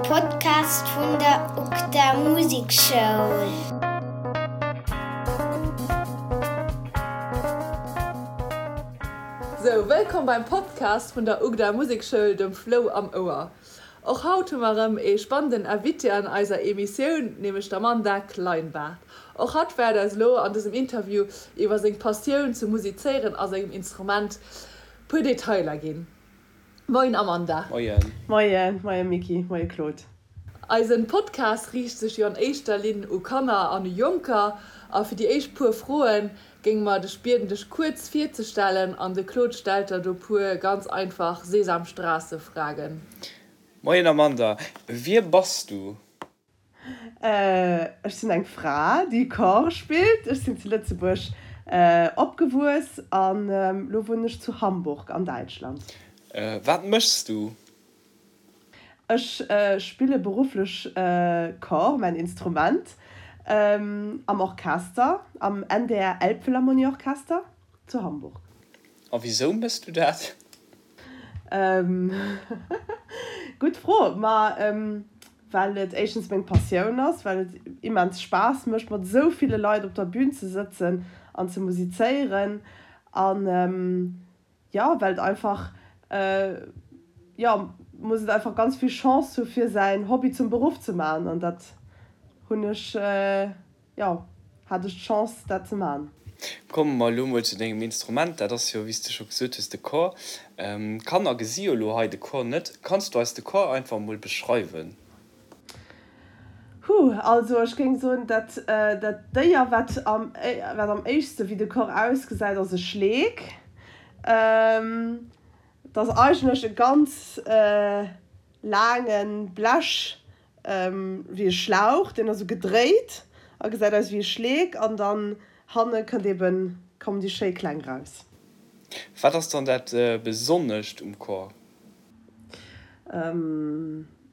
Podcast vun der UGDA Musekschoul. Sou, wëllkomm beim Podcast vun der UGDA Musekschoul, dem Flou am Ouer. Och haut hu mer erëm ee spannenden Invité an eiser Emissioun, nämlech d'Amanda Kleinbart. Och hatt wäert eis elo an dësem Interview iwwer seng Passioun zum Musizéieren a sengem Instrument puer Detailer ginn. Moien Amanda. Moien. Moien, moien Micky, moie Claude. Eisen Podcast riicht sech jo an éischter Linn u Kanner an u Jonker a fir déi éischt puer Froen géinge mer dech bieden dech kuerz virzestellen an de Claude stellt der do puer ganz einfach Sesamstraße-Fragen. Moien Amanda, wie bass du? Ech sinn eng Fra, déi Cor spillt. Ech sinn zu Lëtzebuerg opgewuess an elo wunnen ech zu Hamburg an Däitschland. Wat méchs du? Ech spille berufflech Cor, mäin Instrument, am Orchester, am NDR Elbphilharmonie Orchester zu Hamburg. A wisou méchs du dat? Gutt Fro. Ma well et éischtens meng Passioun ass, well et immens Spaass mécht, mat esou ville Leit op der Bün ze sëtzen an ze musizéieren an jo, well et einfach, jo, muss et einfach ganz vill Chance hu fir säin Hobby zum Beruff ze maachen an dat hunn ech. Jo, hat ech d'Chance dat ze man. Komme mer elo mol zu dengem Instrument, dat ass jo, wéi s de scho gesot hues, de Cor. D'Kanner gesi jo elo hei de Cor net. Kanns du eis de Cor einfach mol beschreiwen? Huh, also ech géing soen, dat dat Déier wat am wat am éischtste wéi de Cor ausgesäit, ass e Schleek. Et ass eigentlech e ganz laange Blech wéi e Schlauch, deen ass esou gedréit a gesäit aus wéi e Schleek an dann hanne kënnt eben, kommen déi schéi Kläng raus. Wat ass dann dat Besonnescht um Cor?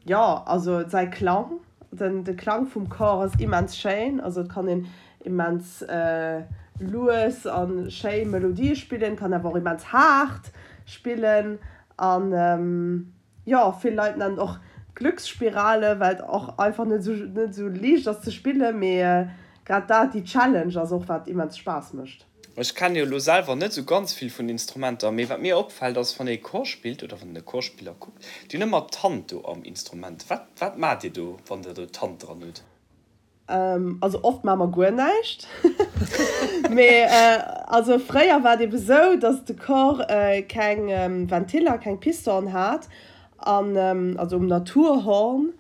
Jo, also säi Klang, den de Klang vum Cor ass immens schéin, also et kann een immens lues a schéi Melodië spillen, kann awer och immens haart spillen an Jo, vill Leit nennen et och Glücksspirale, well et och einfach net esou net esou liicht ass ze spillen, mee grad dat, déi Challenge ass och wat immens Spaass mécht. Ech kennen jo elo selwer net esou ganz vill vun Instrumenter, mee wat mir opfällt ass, wann ee Cor spillt oder wann een e Chorspiller kuckt, déi hunn ëmmer d'Hand do am Instrument. Wat wat maacht dir do, wann der do d'Hand dran hutt? Also oft maache mer guer näischt. Mee also fréier war et ebe sou, datt de Cor keng Ventiller, keng Pistonen hat, an also um Naturhorn,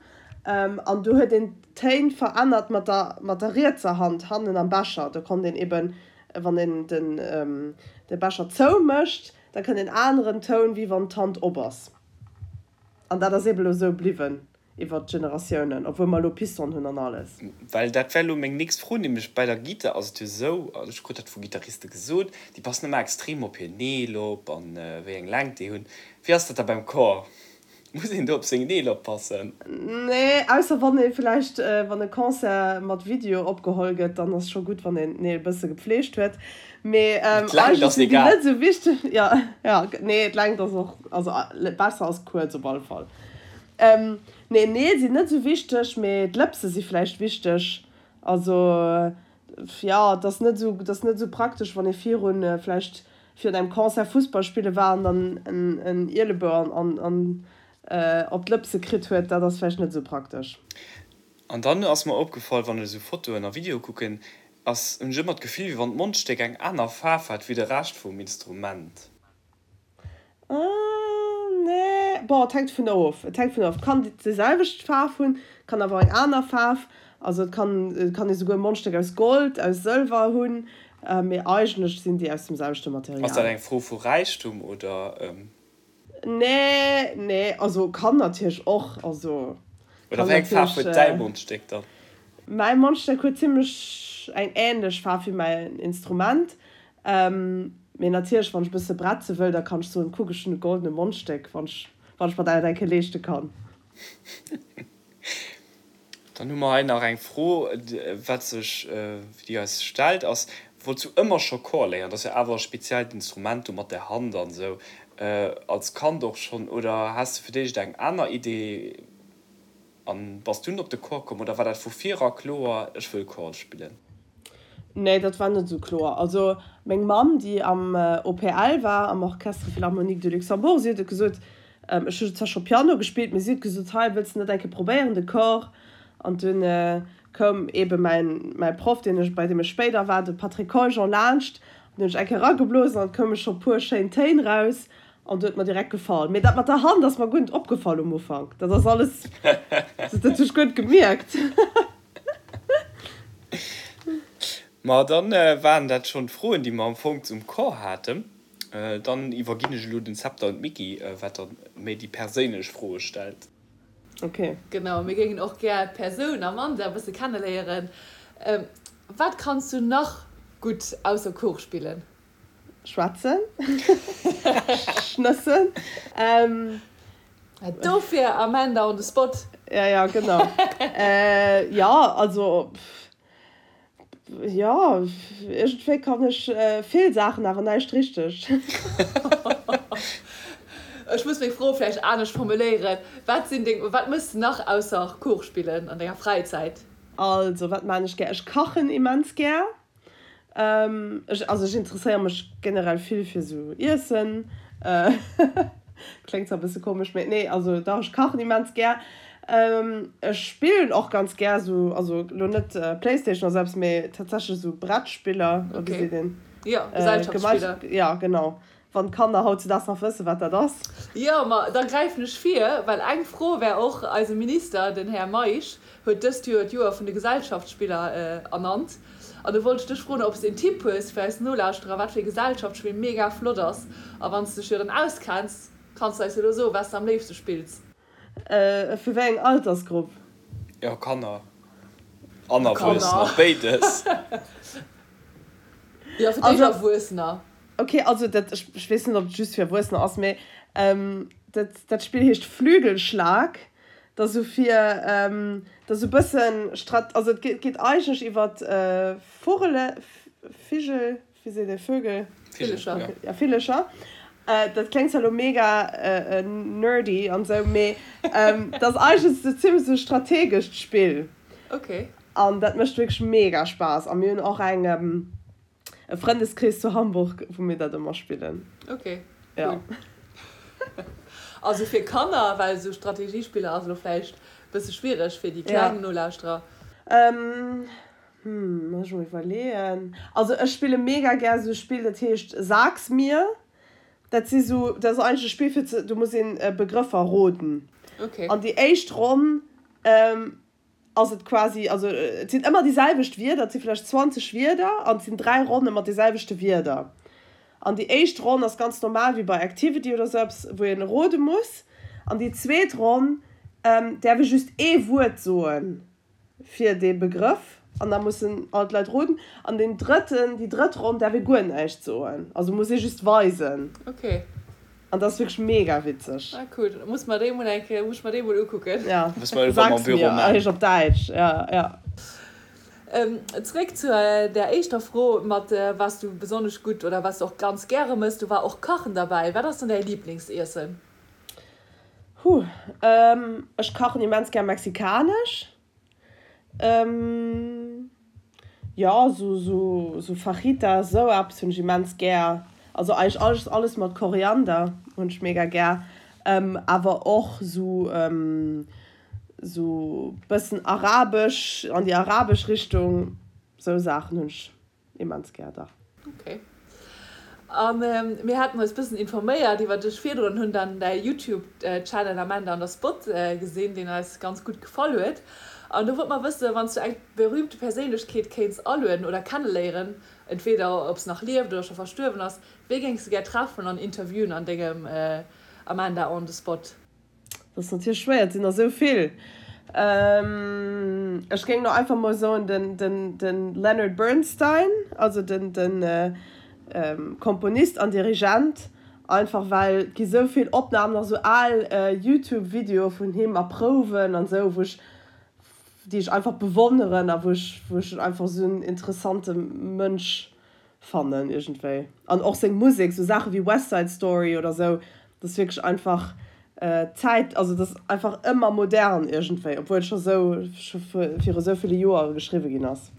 an do huet een d'Téin verännert mat der mat der rietser Hand hannen am Becher. Do konnt een eben, wann een den de Becher zoumécht, da kënnt een aneren Toun, wéi wann d'Hand op ass. An dat ass eben elo sou bliwwen iwwert d'Generatiounen, obwuel mer elo Piston hunn an alles. Well dat wär elo meng nächst Fro, nämlech bei der Gittar ass et jo esou, also ech krut dat vu Gittariste gesot, déi passen ëmmer extrem op hir Neel op an wéi eng Längt déi hunn. Wéi ass dat da beim Cor? Muss een do op seng Neel oppassen? Nee, ausser wann ee vläicht, wann e Concert mat Video opgeholl gëtt, dann ass scho gutt, wann een d'Neel e bësse gepfleegt huet. Mee D'Längt eigentlech ass sinn déi egal. net esou wichteg. Jo, jo, nee, d'Längt ass och, also besser ass kuerz op alle Fall. Nee, Neel sinn net esou wichteg, mee d'Lëpse si vläicht wichteg. Also, jo, et ass net esou, et ass net esou praktesch, wann ee virun, vläicht virun engem Concert Fussball spille war an dann en Ielebou an, an, op d'Lëpse kritt huet. Dat ass vläicht net esou praktesch. An dann ass mer opgefall, wann ech esou Fotoen a Videoe kucken, ass, hunn ech ëmmer d'Gefill, wéi wann d'Mondstéck eng aner Faarf hätt wéi de Rescht vum Instrument. Nee, bon, et hänkt dovun of. Et hänkt dovun of. Et kann déi selwecht Faarf hunn, et kann awer och eng aner Faarf. Also et kann, et kann ee souguer e Mondstéck aus Gold, aus Sëlwer hunn, mee eigentlech sinn déi aus dem selwechte Ass dat Material. eng Fro vu Räichtum oder? Nee, nee, also kann natierlech och, also Oder kann wéi eng Faarf natierlech. huet däi Mondstéck dann? Mäi Mondstéck huet zimmlech eng änlech Faarf wéi mäin Instrument. Mee natierlech, wann ech e bësse bretze wëll, da kann ech soen, kuck, ech hunn e goldene Mondstéck, wann ech, wann ech mer dat eng Kéier leeschte kann. Dann hu mer hei nach eng Fro, wat sech, déi eis stellt, ass, Wollts du ëmmer scho Chor léieren? Dat ass jo awer e speziellt Instrument do mat der Hand an esou. Als Kand och schonn oder has de fir d'éischt eng aner Idee? An bass dunn op de Chor komm oder war dat vu vir era kloer, ech wëll Chor spillen? Nee, dat war net esou kloer. Also meng Mamm, déi am OPL war, am Orchestre Philharmonique de Luxembourg, si huet et gesot, ech hu zwar scho Piano gespillt, mee si huet gesot, hei, wëlls de net eng Kéier probéieren, de Chor? An dunn koum eebe mäin, mäi Proff, deen ech, bei deem ech spéider war, de Patrick Coljon, laanscht an hunn ech eng Kéier erageblosen an et koume scho puer schéin Téin raus. An huet mer direkt gefall. Mee dat mat der Hand ass mer guer net opgefall um Ufank. Dat ass alles, dat hunn ech guer net gemierkt. Ma dann waren dat schonn d'Froen, déi mer am Fong zum Chor haten. Dann iwwerginn ech elo den Zepter un d'Micky, wat dann méi déi perséinlech Froe stellt. Ok. Genau, mir géingen och gär d'Persoun Amanda e bësse kenneléieren. Wat kanns du nach gutt ausser Chor spillen? Schwätzen. Schnëssen. Dofir Amanda on the spot. Ja, ja, genau. Jo, also, jo, iergendwéi kann ech vill Saachen, awer näischt richteg. Ech muss meng Fro vläicht anescht formuléieren, Wat sinn deng, wat méchs de nach ausser Kuch spillen an denger Fräizäit? Also, wat maan ech gär? Ech kachen immens gär. Ech, also ech interesséiere mech generell vill fir sou Iessen. Kléngt zwar e bësse komesch, mee nee, also dach, ech kachen immens gär. Ech spillen och ganz gär sou, also lo net Playstation oder sou eppes, mee tatsächlech sou Brettspiller, oder wéi seet een? Jo, Gesellschaftsspiller. Jo, genau. Wann d'Kanner hautzedaags nach wëssen, wat dat ass. Jo, ma da gräifen ech vir, well eng Fro wär och, Eise Minister, den Här Meisch, huet dëst Joer d'Joer vun de Gesellschaftsspiller ernannt. An do wollt ech dech froen, ob s de en Tipp hues fir eis Nolauschterer, wat fir e Gesellschaftsspill mega flott ass. A wann s de dech jo dann auskenns, kanns de eis jo elo soen, wat s de am léifste spills. Fir wéi eng Altersgrupp? Jo, Kanner an Erwuessener, béides. Jo, fir d'éischt Erwuessener. Ok, also dat, ech weess net, ob et just fir Erwuessener ass, mee dat, dat Spill heescht Flügelschlag. Dat ass esou fir, dat ass esou e bëssen Strat-, also et geet eigentlech iwwer Vugele, Vigel, wéi seet ee, Vögel? Villecher. Ja, Villecher. Dat kléngt zwar elo mega nerdy an esou, mee dat ass eigentlech esou zimlech esou e strategescht Spill. Ok. An dat mécht wierklech mega Spaass. A mir hunn och eng. E Frëndeskrees zu Hamburg, wou mir dat ëmmer spillen. Ok, cool. Also fir Kanner, well esou Strategiespiller ass elo vläicht e bësse schwiereg fir déi kleng Nolauschterer. Hm, muss ech mol iwwerleeën. Also ech spille mega gär esou e Spill, dat heescht Sag's mir. Dat si sou, dat ass eigentlech e Spill fir ze, do muss een Begrëffer roden. Ok. An déi éischt Ronn ass et quasi, also et sinn ëmmer déi selwecht Wierder, et si vläicht 20 Wierder an et sinn 3 Ronne mat de selwechte Wierder. An déi éischt Ronn ass ganz normal wéi bei Activity oder sou eppes, wou een rode muss. An déi zweet Ronn däerf ee just ee Wuert soe fir dee Begrëff an da mussen all d'Leit roden. An deen drëtten, déi drëtt Ronn däerf ee guer näischt soen, also muss ee just weisen. Okay. An dat ass wierklech mega witzeg. Ah cool, da muss mer déi mol eng Kéier, muss ech mer déi mol ukucken. Ja, sag's mir, heescht op Däitsch, ja, ja. Zréck zu der éischter Fro mat was du besonnesch gutt oder was du och ganz gäre mëss, do war och Kachen derbäi. Wat ass dann däi Liblingsiessen? Huh, ech kachen immens gär mexikanesch. Jo, sou Fajitas, sou eppes hunn ech immens gär. Also eigentlech alles, alles mat Koriander hunn ech mega gär. Awer och sou, sou bëssen arabesch, an déi arabesch Richtung, sou Saachen hunn ech Immens gär, dach. Ok. A mir haten eis bëssen informéiert iwwer dech virdrun, hunn dann däi Youtube Channel Amanda on the Spot gesinn, deen eis ganz gutt gefall huet. An do wollte mer wëssen, wann s du eng berühmte Perséinlechkeet kéints alueden oder kenneléieren, entweder ob se nach lieft oder scho verstuerwen ass, wee géings de gär treffen an interviewen an dengem Amanda on the Spot? Dat ass natierlech schwéier, et sinn der esou vill. Ech géing elo einfach mol soen, de Leonard Bernstein, also de Komponist an Dirigent, einfach well et gi sou vill Opnamen, nach sou al Youtube-Videoe vun him a Prouwen an esou, wou ech, déi ech einfach bewonneren a wou ech, wou ech en einfach esou en interessante Mënsch fannen iergendwéi. An och seng Musek, sou Saache wéi West Side Story oder sou, dat ass wierklech einfach. Zäit, also et ass einfach ëmmer modern iergendwéi, obwuel et scho sou scho viru sou ville Joere geschriwwe ginn ass.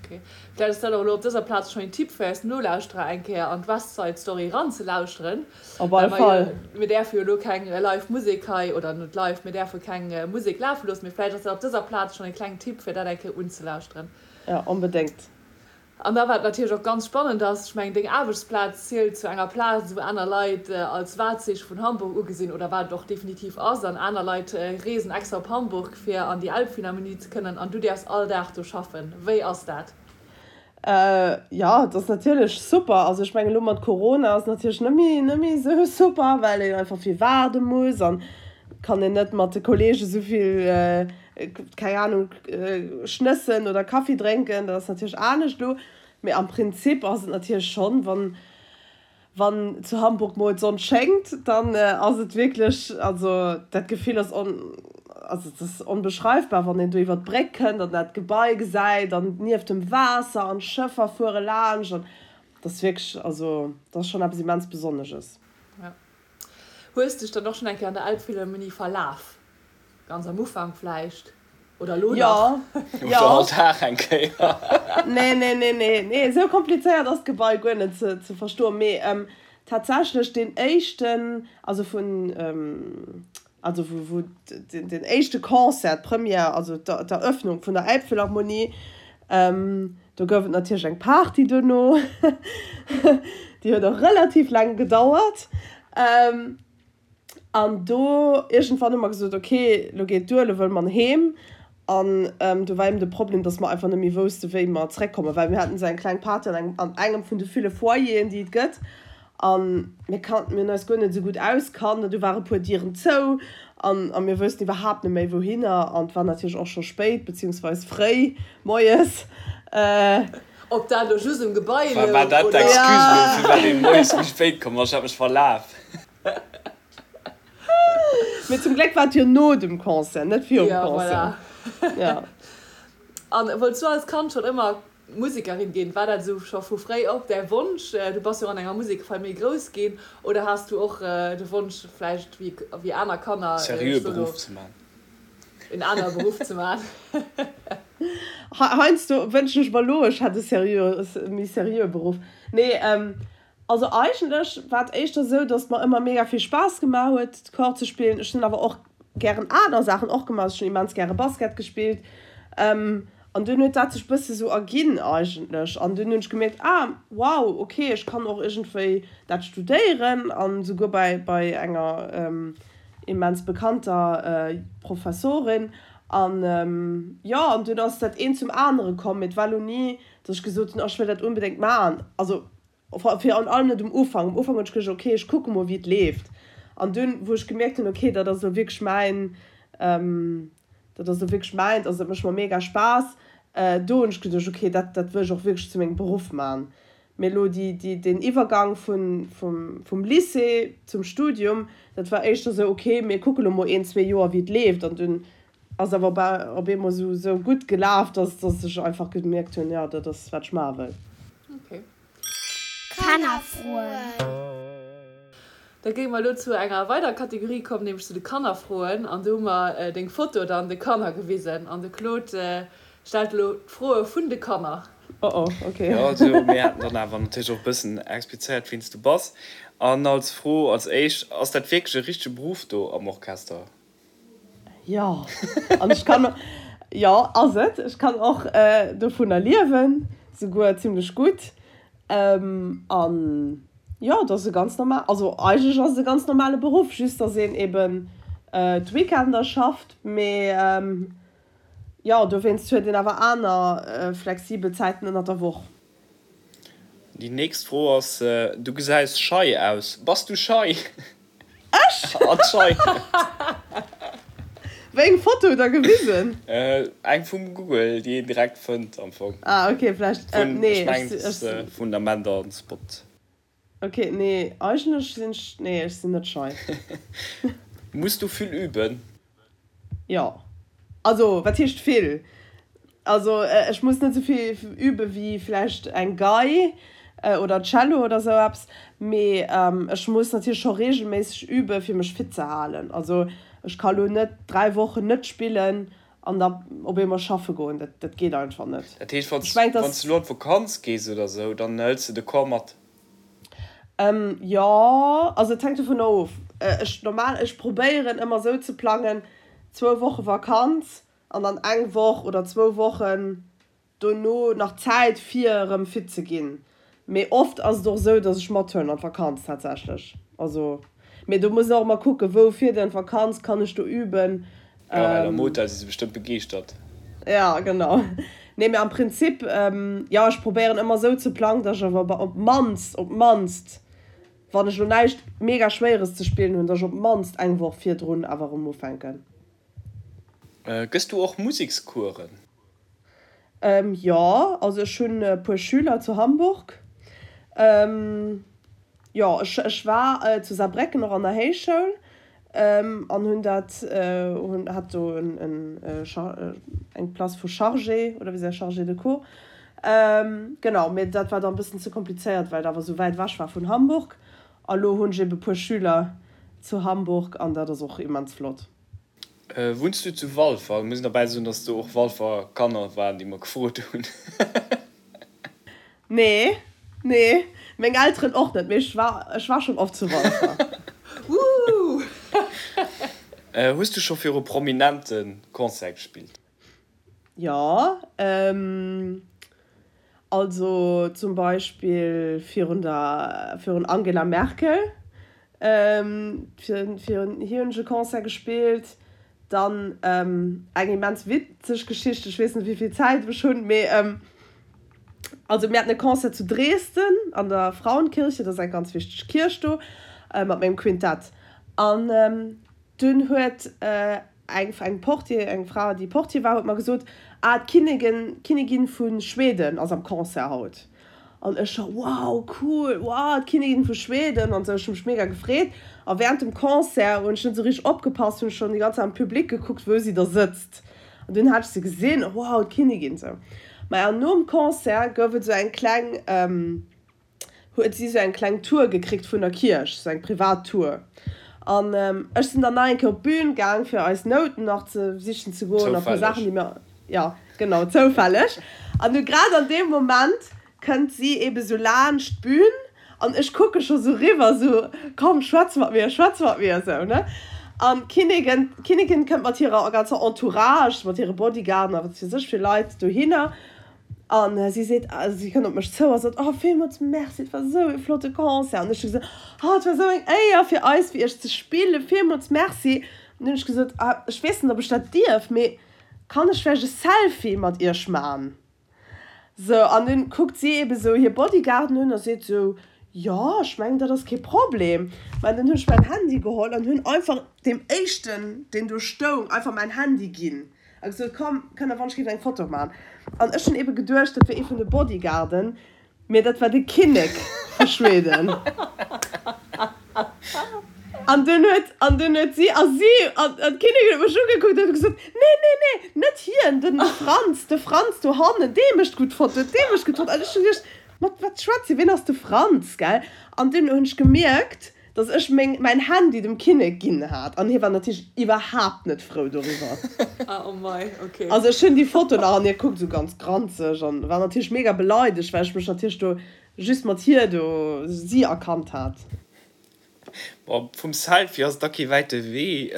Ok, vläicht ass dat och elo op dëser Plaz schonn een Tipp fir eis Nolauschterer, eng Kéier an d'West Side Story eranzelauschteren. Op alle Fall. Mir däerfe jo elo keng live Musek hei, oder net live, mir däerfe keng Musek lafe loossen, mee vläicht ass dat op dëser Plaz schonn e klengen Tipp fir dat eng Kéier unzelauschteren. Jo, onbedéngt. An da wat natierlech och ganz spannend ass, ech mengen deng Aarbechtsplaz zielt zu enger Plaz wou aner Leit als Wahrzeichen vun Hamburg ugesinn, oder wat et och definitiv ass, an aner Leit reesen extra op Hamburg fir an déi Elbphilharmonie ze kënnen an du däerfs all Dag do schaffen. Wéi ass dat? Jo, et ass natierlech super. Also ech mengen elo mat Corona ass natierlech net méi net méi esou super, well een einfach vill waarde muss an kann een net mat de Kollege esouvill keng Ahnung, schnëssen oder Kaffi drénken, dat ass natierlech anescht elo. Mee am Prinzip ass et natierlech schonn, wann, wann zu Hamburg mol d'Sonn schéngt, dann ass et wierklech, also dat Gefill ass on, also et ass onbeschreifbar, wann een do iwwer d'Bréck kënnt an dat Gebai gesäit an nieft dem Waasser an d'Schëffer fuere laanscht an dat ass wierklech, also dat ass schonn eppes immens Besonnesches. Ja. Hues dech dann och schonn eng Kéier an der Elbphilharmonie verlaf? Ganz am Ufank vläicht, oder elo nach? Oder ja. all Dag eng Kéier. Nee, nee, nee, nee, nee, esou komplizéiert ass d'Gebai guer net ze, ze verstoen. Mee ähm, tatsächlech deen éischten, also vun, ähm, also wou, wou den, den éischte Concert, d'Première, also d'Eröffnung vun der Elbphilharmonie, ähm, do gouf et natierlech eng Party duerno. Déi huet och relativ laang gedauert. Ähm, An do iergendwann hu mer gesot, ok, lo geet duer, lo wëlle mer heem. An do war eben de Problem, datt mer einfach net méi wousste wéi mer zeréckkommen, well mir haten esou eng kleng Party an engem, an engem vun de ville Foyeren, déi et gëtt. A mir kannten, mir hunn eis guer net esou gutt auskannt an du ware puer Dieren zou an a mir woussten iwwerhaapt net méi wouhinner. An et war natierlech och scho spéit, beziehungsweis fréi moies. Ob dat elo just um Gebai louch, oder? War dat d'Excuse elo, firwat een moies méi spéit komm ass? Ech hat mech verlaf. Mee zum Gléck war et jo no dem Concert, net virum Ja, Concert. voilà. Ja. An wollts du als Kand schonn ëmmer Musekerin ginn? War dat esou scho vu fréi op däi Wonsch? Du bass jo och an enger Musekfamill grouss ginn. Oder has du och de Wonsch vläicht wéi wéi aner Kanner, ech Seriöe soe lo, Beruff ze man. en anere Beruff ze man? Heiansdo wënschen ech mer elo, ech hätt e seriöe, méi seriöe Beruff. Nee, Also eigentlech war et éischter esou, dass et mer ëmmer mega vill Spaass gemaach huet Cor ze spillen. Ech hunn awer och gären aner Saachen och gemaach. Also ech hunn immens gäre Basket gespillt an dunn huet dat sech bësse sou erginn eigentlech an dunn hunn ech gemierkt, ah wow ok ech kann och iergendwéi dat studéieren an souguer bei bei enger immens bekannter Professorin an jo an dunn ass dat eent zum anere komm. Mee et war lo ni, dass ech gesot hunn, oh ech wëll dat onbedéngt maachen. Also Virun allem net um Ufank. Um Ufank hunn ech geduecht, ok, ech kucke mol, wéi et leeft. An dunn, wou ech gemierkt hunn, ok, dat ass elo wierklech mäin, dat ass elo wierklech mäint, also dat mécht mer mega Spaass, do hunn ech geduecht, ok, dat, dat wëll ech och wierklech zu mengem Beruff maachen. Mee elo déi, déi, deen Iwwergang vun, vum, vum Lycée zum Studium, dat war éischter esou, ok, mir kucke lo mol een, zwee Joer, wéi et leeft. An dunn ass awer op eemol esou, esou gutt gelaf, dass, dass ech einfach gemierkt hunn, jo, dat ass, wat ech maache wëll. Ok. Kannerfroen. Da géinge mer elo zu enger weiderer Kategorie kommen, nämlech zu de Kannerfroen. An do hu mer deng Foto dann de Kanner gewisen. An de Claude stellt elo d'Froe vun de Kanner. Oh oh, ok. Jo, also mir haten dann awer natierlech och e bëssen explizéiert, wien s du bass. An als Fro als éischt, Ass dat wierklech e richtege Beruff do am Orchester? Jo, an ech kann, jo ass et. Ech kann och dovunner liewen, souguer zimlech gutt. An jo, et ass e ganz normal, also eigentlech ass et e ganz normale Beruff, just datt een eben d'Weekender schafft. Mee jo, dowéinst huet een awer aner flexibel Zäiten ënnert der Woch. Déi nächst Fro ass, Du gesäis schei aus. Bass du schei? Ech? Anscheinend. Wéi eng Foto hutt der gewisen? Eng vum Google, déi een direkt fënnt am Fong. Ah ok, vläicht. Vun, Nee, ech mengen ech et ass vun der Mender on Spot. Ok, nee, eigentlech sinn ech, nee, ech sinn net schei. Muss du vill üben? Jo. Also, wat heescht vill? Also, ech muss net esou vill übe wéi vläicht eng Gei. Oder Cello oder sou eppes. Mee ech muss natierlech scho reegelméisseg üben, fir mech fit ze halen. Also ech ka lo net 3 Wochen net spillen an da op eemol schaffe goen. Dat, dat geet einfach net. Dat heescht, wann s du elo an d'Vakanz gees oder sou, dann hëls de de Chor mat? Jo, also et hänkt dovunner of. Ech normal, ech probéieren ëmmer sou ze plangen, zwou Woche Vakanz an dann eng Woch oder zwou Wochen dono nach Zäit fir erëm fit ze ginn. Mee oft ass et och esou, dass ech mathuelen an d'Vakanz tatsächlech. Also, mee do muss een och ëmmer kucken, wou fiert een an d'Vakanz, kann ech do üben? Jo, well am Hotel si se bestëmmt begeeschtert. Ja, genau. Nee, mee am Prinzip, jo, ech probéieren ëmmer esou ze plangen, dass ech awer op d'mannst, op d'mannst, wann ech elo näischt mega Schwéieres ze spillen hunn, dass ech op d'mannst eng Woch virdrun awer erëm ufänken. Gëss du och Musekscoursen? Jo, also ech hunn e puer Schüler zu Hamburg. Jo, ech ech war zu Saarbrécken och an der Héichschoul an hunn dat hunn hat do en en eng Place vu Chargé oder wéi se Chargé de cours. Genau, mee dat war dann e bëssen ze komplizéiert, well et awer esou wäit ewech war vun Hamburg. A lo hunn ech ebe puer Schüler zu Hamburg an dat ass och immens flott. Wunns du zu Walfer? Muss een derbäi soen, dass do och Walfer Kanner waren, déi mer gefrot hunn. Nee, nee, meng Elteren och net, mee ech war, ech war schonn oft zu Walfer. Woohoo! Hues du scho viru Prominente Concert gespillt? Jo, also zum Beispill virun der, virun Angela Merkel, virun hir hunn ech e Concert gespillt. Dann eng immens witzeg Geschicht, ech weess net wéi vill Zäit ech hunn, mee also mir haten e Concert zu Dresden an der Frauenkirche, dat ass eng ganz wichteg Kierch do, mat mengem Quintett an dunn huet Eng eng Portier, eng Fra déi Portier war, huet mer gesot, ah d'Kinnigin, d'Kinnigin vu Schweden ass am Concert haut. An ech scho, wow cool, wow d'Kinnigin vu Schweden an sou. Ech hu mech mega gefreet. A während dem Concert hunn ech net sou richteg opgepasst, hunn ech schonn déi ganz Zäit am Public gekuckt, wou si da sëtzt. An dunn hat ech se gesinn, wow d'Kinnigin sou. Maja nom Concert gouf et sou eng kleng, huet si sou eng kleng Tour gekritt vun der Kierch, sou eng privat Tour. An ech sinn dann nach eng Kéier op d'Bühn gaang, fir eis Nouten nach ze sichen ze goen a puer Saachen, déi mir, jo, genau, zoufälleg. An du grad an deem Moment kënnt si ebe sou laanscht d'Bühn an ech kucke scho sou riwwer, sou, komm, schwätz mat mir, schwätz mat mir, sou, ne. An d'Kinnigin, d'Kinnigin kënnt mat hirer ganzer Entourage, mat hire Bodyguarden a wat weess ech fir Leit dohinner. An si seet, si kënnt op mech zou a sot, Oh, villmools Merci, et war esou e flotte Concert. An ech hu gesot, Oh, et war esou eng Éier fir eis, fir iech ze spillen, villmools Merci. An dunn hunn ech gesot, Ah, ech weess net, ob ech dat dierf, mee kann ech vläicht e Selfie mat iech man? Sou, an dunn kuckt si eebe sou hir Bodyguarden un a seet sou, Jo, ech mengen, dat ass kee Problem. Mä dunn hunn ech mäin Handy geholl an hunn einfach deem éischten, deen do stoung, einfach mäin Handy ginn. A gesot, komm, kënnt der wann ech géif eng Foto man. An ech hunn ebe geduecht, dat wier ee vun de Bodyguarden, mee dat war de Kinnek vu Schweden. An dunn huet, an dunn huet si, a si, an d'Kinnigin huet mech ugekuckt an huet gesot, nee, nee, nee, net hien, den Franz, de Franz do hannen, dee mécht gutt Fotoen, dee mécht gutt Fotoen. An ech hunn geduecht, mat wat schwätzt si, wien ass de Franz, gell? An dunn hunn ech gemierkt, Dass ech meng mäin Handy dem Kinnek ginn hat an hie war natierlech iwwerhaapt net frou doriwwer. Ah oh mei, ok. Also ech hunn déi Foto nach an hie kuckt esou ganz granzeg an war natierlech mega beleidegt, well ech mech natierlech do just mat hir do si erkannt hat. Bon, vum Selfie ass et da kee wäite Wee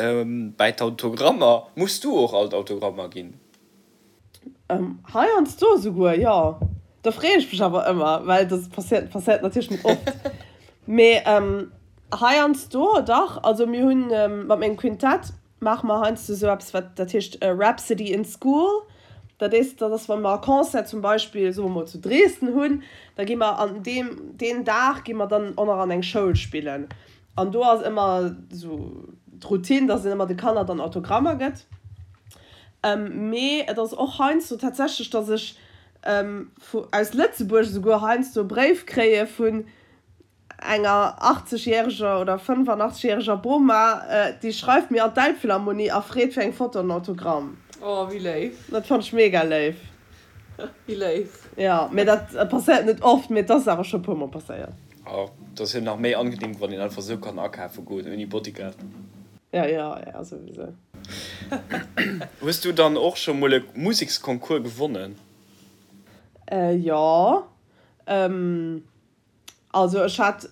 bäi d'Autogrammer. Muss du och all d'Autogrammer ginn? Heiansdo esouguer, jo. Da freeë ech mech awer ëmmer, well dat passéiert, passéiert natierlech net oft. Mee heiansdo dach. Also mir hunn mat mengem Quintett maache mer heiansdo esou eppes, wat dat heescht Rhapsody in School. Dat is, dat ass, wa mer e Concert zum Beispill, soe mer mol zu Dresden hunn, da gi mer an deem, deen Dag gi mer dann och nach an eng Schoul spillen. An do ass ëmmer esou d'Routine, dass een ëmmer de Kanner dann Autogrammer gëtt. Mee et ass och heiansdo tatsächlech, dass ech vu aus Lëtzebuerg esouguer heiansdo e Bréif kréie vun enger 80 järeger oder 85 järeger Boma, déi schreift mir an d'Elbphilharmonie a freet fir eng Foto an en Autogramm. Oh, wéi léif. Dat fannt ech mega léif. Wéi léif. Jo, mee dat passéiert net oft, mee et ass awer scho e puer mol passéiert. Jo, et ass jo nach méi angenehm, wann een einfach sou kann akafe goen ouni Bodyguard. Jo, jo, jo, souwisou. Hues du dann och scho mol e Museksconcours gewonnen? Jo, Also ech hat,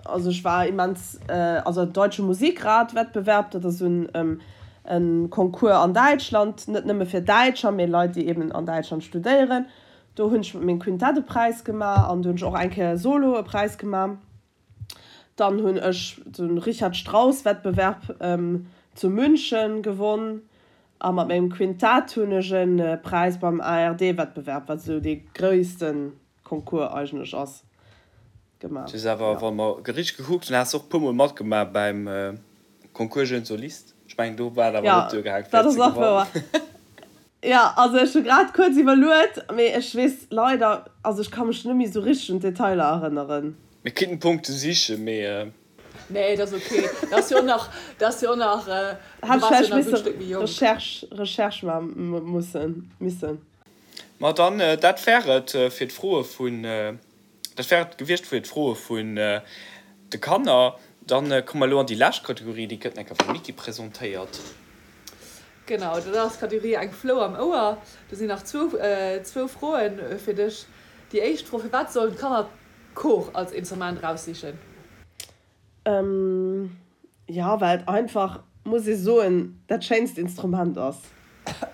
also ech war immens, also Deutsche Musikrat Wettbewerb, dat ass esou en Concours an Däitschland, net nëmme fir Däitscher, mee Leit déi eben an Däitschland studéieren. Do hunn ech mat mengem Quintett e Präis gemaach an do hunn ech och eng Kéier solo e Präis gemaach. Dann hunn ech de Richard Strauss Wettbewerb zu München gewonn a mat mengem Quintett hunn ech e Präis beim ARD Wettbewerb, wat esou dee gréisste Concours eigentlech ass, gemaach. Du hues awer, wa mer richteg gekuckt hunn, has de och e puer mol matgemaach beim Concours Jeune Soliste. Ech mengen, do war et awer net duergaangen, fir ze gewannen. Jo, also ech hu grad kuerz iwwerluet, mee ech weess leider, also ech ka mech net méi esou richteg un d'Detailer erënneren. Mir kinnten Punkte sichen, mee. Nee, dat ass ok. Dat ass jo och nach, dat ass jo och nach, du Hat ech waars jo vläicht nach e gutt misse Stéck méi jonk. Recherche, Recherche maache mussen, missen. Ma dann, dat wär et fir d'Froe vun, dat wär et gewiescht fir d'Froe vun de Kanner. Dann komme mer elo an déi lescht Kategorie, déi gëtt enker vum Niki presentéiert. Genau, dat ass d'Kategorie Eng Flou am Ouer. Do sinn nach zwou, zwou Froen fir dech. Déi éischt Fro, Firwat sollen d'Kanner d'Cor als Instrument eraussichen? Jo, well et einfach, muss ee soen, dat schéinst Instrument ass.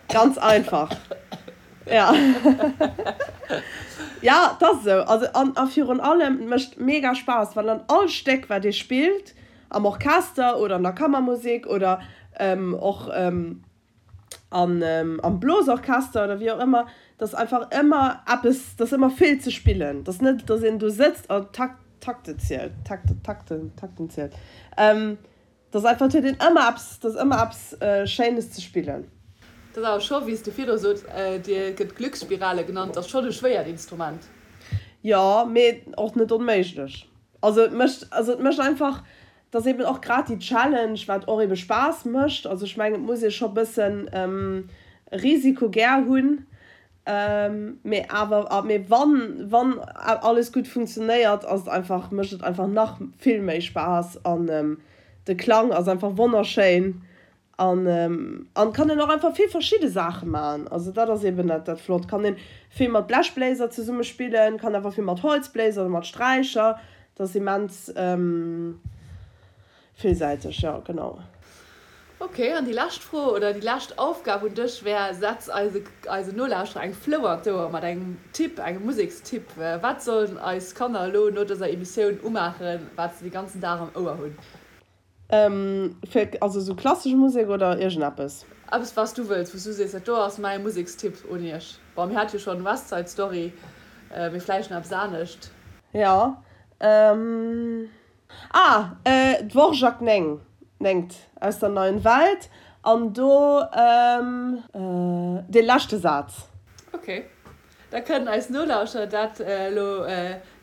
Ganz einfach. Ja. Ja, et ass esou. Also, an a virun allem, et mécht mega Spaass, well an all Stéck, wat ee spillt, am Orchester oder an der Kammermusek oder och an am Blosorchester oder wéi och ëmmer, dass einfach ëmmer eppes, dass ëmmer vill ze spillen, dass net, dass een do sëtzt a Tak, Takte zielt, Takte, Takten, Takten zielt, dass einfach, et huet een ëmmer eppes, dass ëmmer eppes Schéines ze spillen. Dat ass awer scho, wéi s de virdru sot, dir gëtt Glücksspirale genannt, ass schonn e schwéiert Instrument. Jo, mee och net onméiglech. Also et mécht, also et mécht einfach, Et ass eben och grad déi Challenge, wat och ebe Spaass mécht. Also ech mengen, et muss ee scho bëssen Risiko gär hunn, mee awer, mee wann, wann alles gutt funktionéiert, ass et einfach, mécht et einfach nach vill méi Spaass an de Klang ass einfach wonnerschéin An an kann een och einfach vill verschidde Saache man. Also dat ass eben dat dat flott. Kann een vill mat Blechbléiser zesumme spillen, kann awer vill mat Holzbléiser oder mat Sträicher. Dat ass immens villsäiteg, jo genau. Ok, an déi lescht Fro oder déi lescht Aufgab un dech wär, Setz eise eisen Nolauschterer eng Flou an d'Ouer mat engem Tipp, engem Musekstipp. Wat sollen eis Kanner elo no dëser Emissioun umaachen, wat se de ganzen Dag am Ouer hunn? Fir, also sou klassesch Musek oder iergendeppes? Eppes wat s du wëlls, wou s du sees, dat do ass mäi Musekstipp un iech. Bon, mir hate jo schonn West Side Story, mee vläicht nach eppes anescht. Jo, ah, Dvorak 9, néngt, aus der Neuen Welt, an do dee leschte Saz. Ok, da kënnen eis Nolauschterer dat elo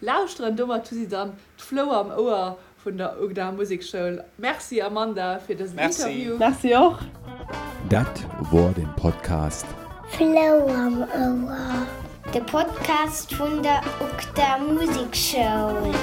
lauschteren. Domat hu si dann d'Flou am Ouer Vun der UGDA Musekschoul. Merci Amanda fir dësen Interview. Merci och. Dat wor den Podcast. Flou am Ouer. De Podcast vun der UGDA Musekschoul.